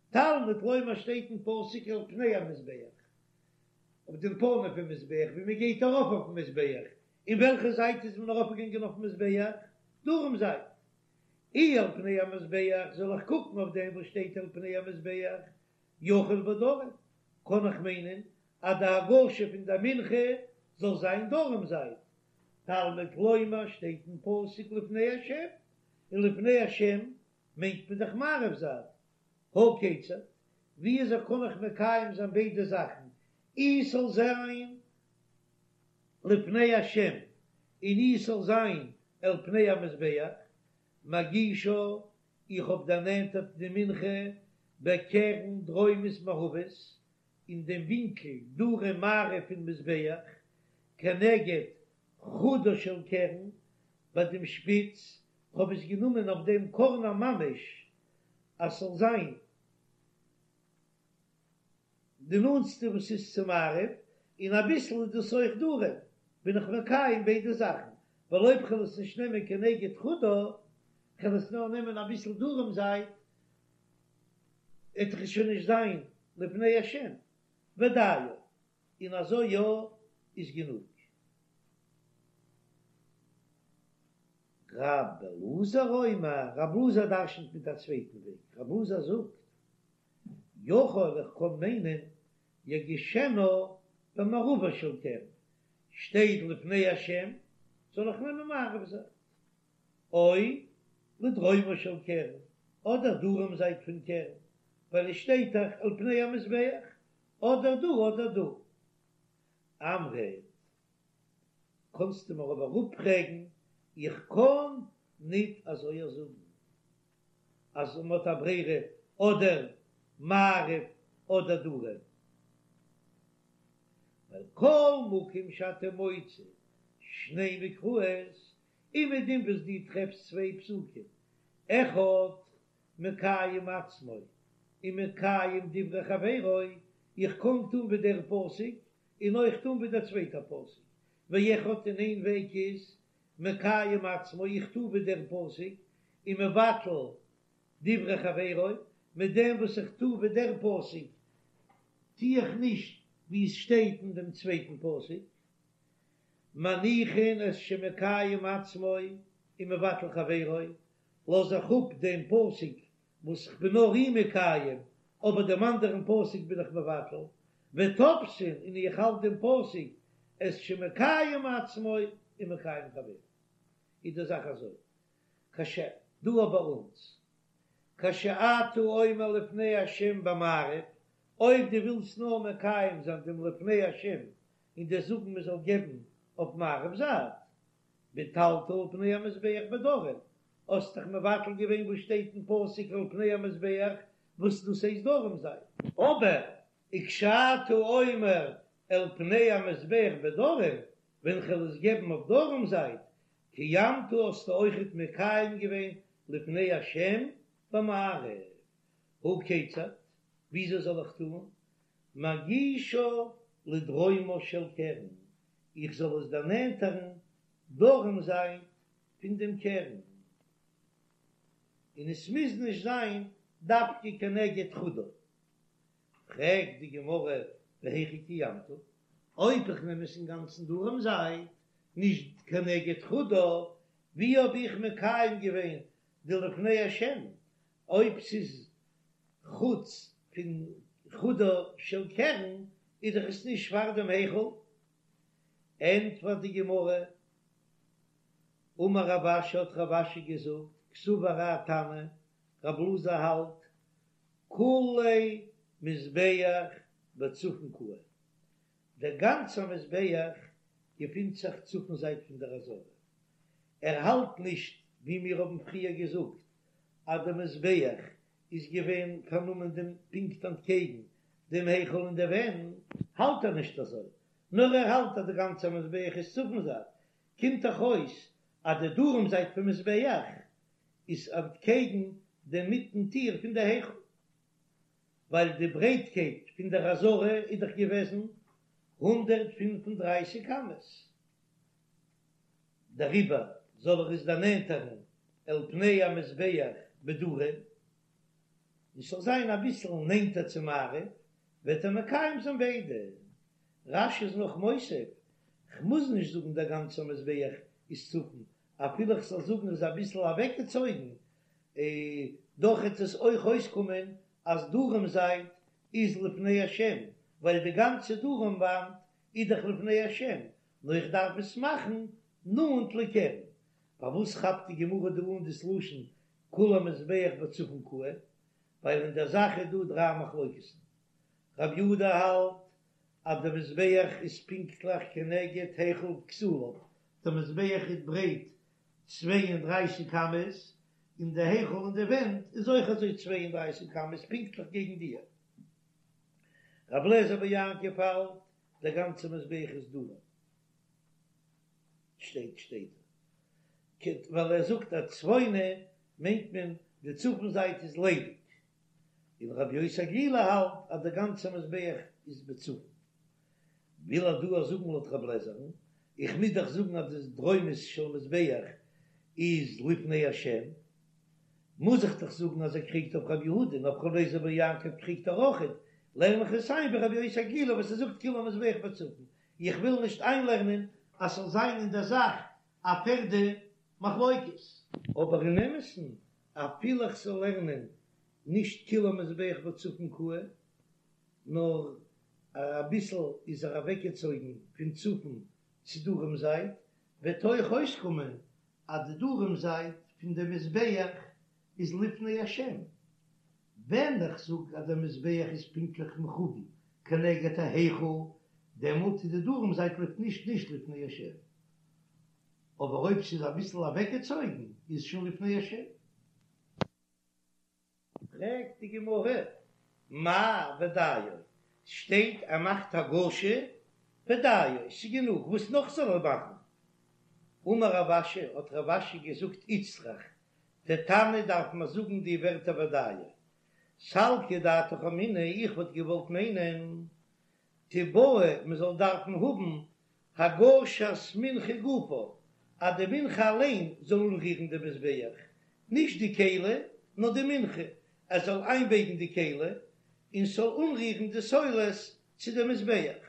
תלמוד לומר שטייט אין פסוק אל פני המזבח, אויף דעם פנים פון מזבח ווי מען גייט ארויף אויפן מזבח, אין וועלכע זייט איז מען ארויפגעגאנגען אויפן מזבח? דרום זייט. אי אל פני המזבח זאל איך קוקן אויף דעם וואס שטייט אל פני המזבח, יכול בדרום, קען איך מיינען אז די הגשה פון די מנחה זאל זיין דרום זייט, תלמוד לומר שטייט אין פסוק לפני השם, און לפני השם מיינט מען דאך מערב זייט, הא כיצד, ווי אזוי קען איך מקיים זיין ביידע זאכן, אי ס'זאל זיין לפני השם און אי ס'זאל זיין אל פני המזבח, מגישה, איך האב דערנענטערט די מנחה בקרן דרומית מערבית, אין דעם ווינקל דרום מערב פון מזבח, כנגד חודה של קרן, ביי דעם שפיץ, כ'האב עס גענומען אויף דעם קארנער ממש, אז ס'זאל זיין די נאנטסטע וואס איז צו מערב, און אביסל איז דאס אויך דרום, בין איך מקיים ביידע זאכן, ווייל אויב כ'וועל עס נישט נעמען כנגד חודה, כ'וועל עס נאר נעמען אביסל דרום זייט, וועט דאך עס שוין נישט זיין לפני השם, ודיו, און אזוי יא איז גענוג. ר' אלעזר אומר, ר' אלעזר דרשנ'ט מיט א צווייטן וועג, ר' אלעזר זאגט, יכול איך קען מיינען יגישנה במערבה של קרן, שטייט לפני השם זאל איך נעמען מערב זייט, או לדרומה של קרן, אדער דרום זייט פון קרן, ווייל עס שטייט דאך אל פני המזבח, אדער דא אדער דא. אמרת, קאנסטו מיר אבער אפפרעגן, איך קען ניט אזוי זאגן. אז מען האט א ברירה אדער מערב אדער דרום, ווייל כל מקום שאתה מוצא שני מקראות, אומעדום וואס דו טרעפסט צוויי פסוקים, אחד מקיים עצמו ומקיים דברי חברו, איך קען טון ווי דער פסוק און אויך טון ווי דער צווייטער פסוק, ואחד און איין וועג איז מקיים עצמו, איך טו ווי דער פסוק, ומבטל דברי חברו, מיט דעם וואס איך טו ווי דער פסוק, טו איך נישט ווי עס שטייט אין דעם צווייטן פסוק, מניחין את שמקיים עצמו ומבטל חברו, לאז איך אפ דעם פסוק וואס איך בין נאר אים מקיים, אבער דעם אנדערן פסוק בין איך מבטל, ותופסין, און איך האלט דעם פסוק את שמקיים עצמו ומקיים חברו. איז די זאך אזוי, כש דא ביי אונז, כשאתה אומר לפני השם במערב, אויב דו ווילסט נאר מקיים זיין דעם לפני השם און דיר זאגן מען זאל געבן אויף מערב זייט, ביטלת אל פני המזבח בדרום, האסט דאך מבטל געווען וואס שטייט אין פסוק אל פני המזבח וואס דאס הייסט דרום זייט. אבער וכשאתה אומר אל פני המזבח בדרום. ווען כ'וועל עס געבן אויף דרום זייט, קיימת האסטו אויכעט מקיים געווען לפני השם במערב, הא כיצד, וויאזוי זאל איך טון, מגישה לדרומה של קרן, איך זאל עס דערנענטערן דרום זייט פון דעם קרן, און עס מוז נישט זיין דווקא כנגד חודו. פרעגט די גמרא והיכי קיימת, אויב איך נעם עס אינגאנצן דרום זייט, נישט כנגד חודו, ווי האב איך מקיים געווען די לפני השם, אויב ס'איז חוץ פון חודו של קרן איז דאך עס נישט פאר דעם היכל? ענטפערט די גמרא, אמר רב אשי האט רב אשי געזאגט, קסבר האי תנא, רב אלעזר האלט, כוליה מזבח בצפון קאי, דער גאנצער מזבח געפינט זיך צפון זייט פון דער עזרה, ער האלט נישט ווי מיר האבן פריער געזאגט אז דער מזבח איז געווען פארנומען דעם פונקט אנטקעגן דעם היכל און די ווענט, האלט ער נישט אזוי, נאר ער האלט אז די גאנצע מזבח איז צפון זייט, קומט דאך אויס אז די דרום זייט פון מזבח איז אנטקעגן דעם מיטן טיר פון די היכל, ווייל די ברייטקייט פון דער עזרה איז דאך געוועזן 135 אמות, דעריבער זאל ער עס דערנענטערן אל פני המזבח בדרום, און ס'זאל זיין אביסל נענטער צו מערב, וועט ער מקיים זיין ביידע. רש"י איז נאך מוסיף, כ'מוז נישט זאגן דער גאנצער מזבח איז צפון, אפילו כ'זאל זאגן איז אביסל אוועקגעצויגן, דאך וועט עס אויך אויסקומען אז דרום זייט איז לפני השם, ווייל די גאנצע דרום וואנט איז דאך לפני השם, נאר איך דארף עס מאכן נאנט לקרן. פארוואס כאפט די גמרא דא אן דאס לשון כל המזבח בצפון קאי? ווייל אין דער זאך איז דא דריי מחלוקת'ן. רב יהודה האלט אז דער מזבח איז פונקטליך כנגד היכל וכתליו, דער מזבח איז ברייט 32 אמות, און די היכל און די ווענט איז אויך אזוי 32 אמות פונקטליך געגן די. רב לעזער בר יעקב האלט דער גאנצער מזבח איז דרום. שטייט שטייט ווייל ער זאגט אז צפונה מיינט מען די צפון זייט איז ליידיג, און רבי יוסי הגלילי האלט אז דער גאנצער מזבח איז בצפון. וויל ער דא זאגן לויט רב לעזער'ן, איך מוז דאך זאגן אז די דרומית של מזבח איז לפני השם, מוז איך דאך זאגן אז ער קריגט אויף רבי יהודה און אויף רבי אליעזר בן יעקב קריגט ער אויכעט, לערן איך עס איין ווי רבי יוסי הגלילי וואס ער זאגט כולי המזבח בצפון, איך וויל נישט איינלערנען אז ס'זאל זיין אין דער זאך א פערדע מחלוקת. אבער אין אמת'ן אפילו איך זאל לערנען נישט כולי המזבח בצפון קאי, נאר אביסל איז ער אוועקגעצויגן פון צפון צו דרום זייט, וועט אויך אויסקומען אז די דרום זייט פון די מזבח איז לפני השם, ווען איך זאג אז דער מזבח איז פונקטליך מכוון כנגד ההיכל, דעמאלט איז די דרום זייט נישט נישט לפני השם, אבער אויב ס'איז אביסל אוועקגעצויגן איז שוין לפני השם. פרעגט די גמרא, מאי ודיו, ס'שטייט ער מאכט הגשה ודיו, ס'איז גענוג, וואס נאך זאל ער מאכן? אמר רב אשי, האט רב אשי געזאגט איצטריך, דער תנא דארף מען זאגן די ווערטער ודיו. סלקא דעתך אמינא, איך וואלט געוואלט מיינען, תיבעי מען זאל דארפן האבן הגשת מנחה גופה, אז די מנחה אליין זאל אנרירן די מזבח, נישט די כלי, נאר די מנחה, ער זאל איינבייגן די כלי און ס'זאל אנרירן די סולת צו די מזבח.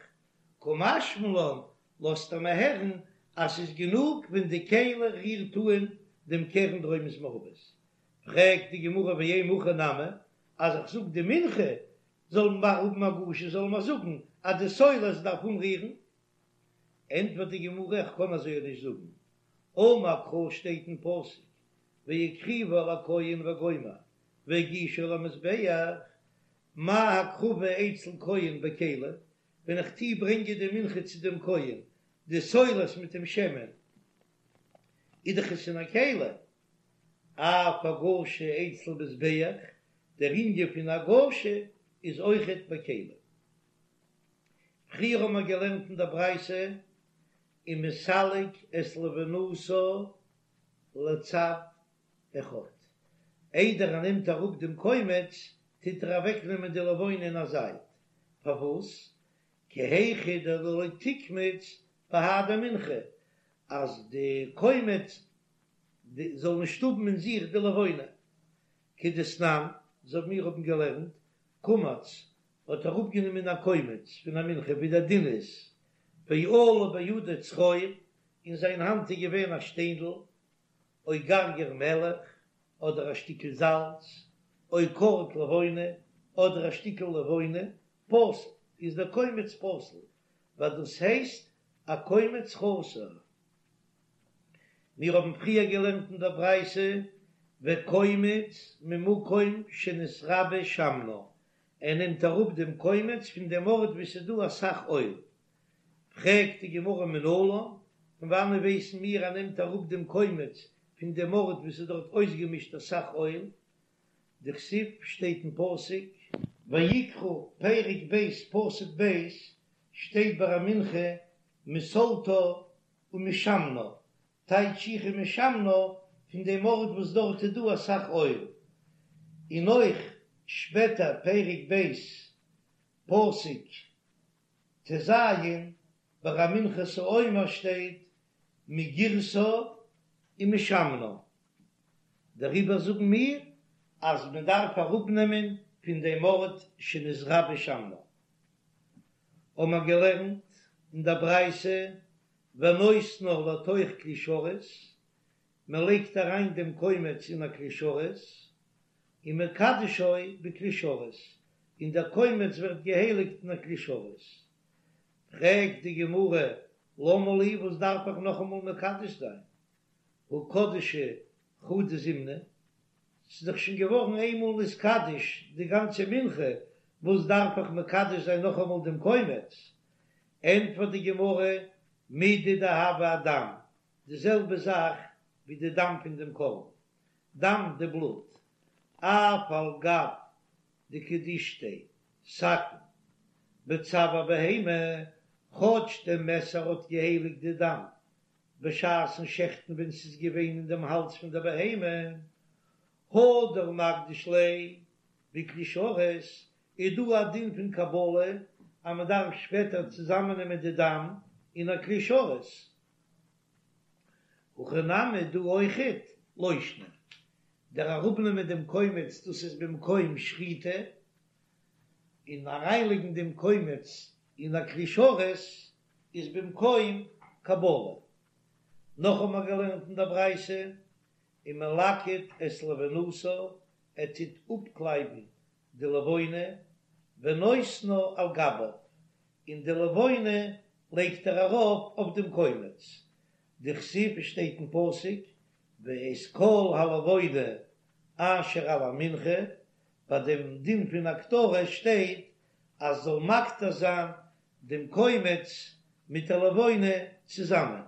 קא משמע לן, לאזט ער מיר הערן אז ס'איז גענוג ווען די כלי רירט אן דעם קרן דרומית מערבית. פרעגט די גמרא ואימא הכי נמי, אז איך זאג די מנחה זאל מען האבן הגשה זאל מען זאגן אז די סולת דארף אנרירן? ענטפערט די גמרא איך קען אזוי נישט זאגן, אמר קרא שטייט אין פסוק והקריבה אל הכהן וגומר והגישה אל המזבח, מה הקרבה אצל כהן בכלי, ווען איך טוה ברענגען די מנחה צו דעם כהן, די סולת מיט דעם שמן, איז דאך עס אין א כלי, אף הגשה אצל מזבח, דער ענין פון הגשה איז אויכעט בכלי. פריער האבן מיר געלערנט אין דער ברייתא. ומסלק את לבונתה לצד אחד, איידער ער נעמט אראפ דעם קומץ טוט ער אוועקנעמען די לבונה אין א זייט, פארוואס? כי היכי דלא תקמוץ בהדי מנחה, אז די קומץ זאל נישט האבן אין זיך די לבונה, כדתנן, אזוי ווי מיר האבן געלערנט, קמץ האט אראפגענומען א קומץ פון א מנחה ווי דער דין איז, ועלה בידו צרור, אין זיין האנט איז געווען א שטיינדל, או גרגר מלח, אדער א שטיקל זאלץ, או קורט לבונה, אדער א שטיקל לבונה, פסול, איז דער קומץ פסול, ווייל דאס הייסט א קומץ חסר. מיר האבן פריער געלערנט אין דער ברייתא, וקומץ ממקום שנתרבה שמנה, ער נעמט אראפ דעם קומץ פון דעם ארט וואו ס'איז דא אסאך אויל. פרעגט די גמרא מנלן, פון וואנען ווייסן מיר ער נעמט אראפ דעם קומץ פון דעם ארט וואו ס'איז דארט אויסגעמישט אסאך אויל? דכתיב שטייט אין פסוק. ויקרא פרק ב' פסוק ב' שטייט ביי א מנחה מסלתה ומשמנה, טייטש איך ומשמנה פון דעם ארט וואס דארט איז דא אסאך אויל, און אויך שפעטער פרק ב' פסוק ט"ז ביי א מנחת העומר שטייט מגרשה ומשמנה, דעריבער זאגן מיר אז מען דארף אראפנעמען פון דעם ארט שנתרבה שמנה. האבן מיר געלערנט אין דער ברייתא ונותנה לתוך כלי שרת, מען לייגט אריין דעם קומץ אין א כלי שרת, ומקדשו בכלי שרת, און דער קומץ ווערט געהייליגט אין א כלי שרת. פרעגט די גמרא, למה לי, וואס דארף איך נאכאמאל מקדש זיין? הא קדשה חדא זימנא, ס'איז דאך שוין געווארן איינמאל נתקדש די גאנצע מנחה, וואס דארף איך מקדש זיין נאכאמאל דעם קומץ? ענטפערט די גמרא, מידי דהוה אדם, די זעלבע זאך ווי די דם פון דעם קרבן, דם די בלוט, אף על גב דקדישתיה סכין בצואר בהמה, כאטש די מעסער האט געהייליגט די דם בשעת'ן שעכטן ווען ס'איז געווען אין דעם האלז פון דער בהמה, הדר מקדיש ליה בכלי שרת, איז דא א דין פון קבלה אז מען דארף שפעטער צוזאמענעמען די דם אין א כלי שרת. הכא נמי דא אויכעט לא שנא. דער אראפנעמען דעם קומץ דאס איז במקום שחיטה, און אריינלייגן דעם קומץ אין א כלי שרת איז במקום קבלה. נאך האבן מיר געלערנט אין דער ברייתא, ומלקט את לבונתה, ער טוט אפקלייבן די לבונה, ונותנה על גביו, און די לבונה לייגט ער ארויף אויף דעם קומץ, דכתיב שטייט אין פסוק, ואת כל הלבונה אשר על המנחה, ביי דעם דין פון הקטרה שטייט אז זאל מקטיר זיין דעם קומץ מיט די לבונה צוזאמען.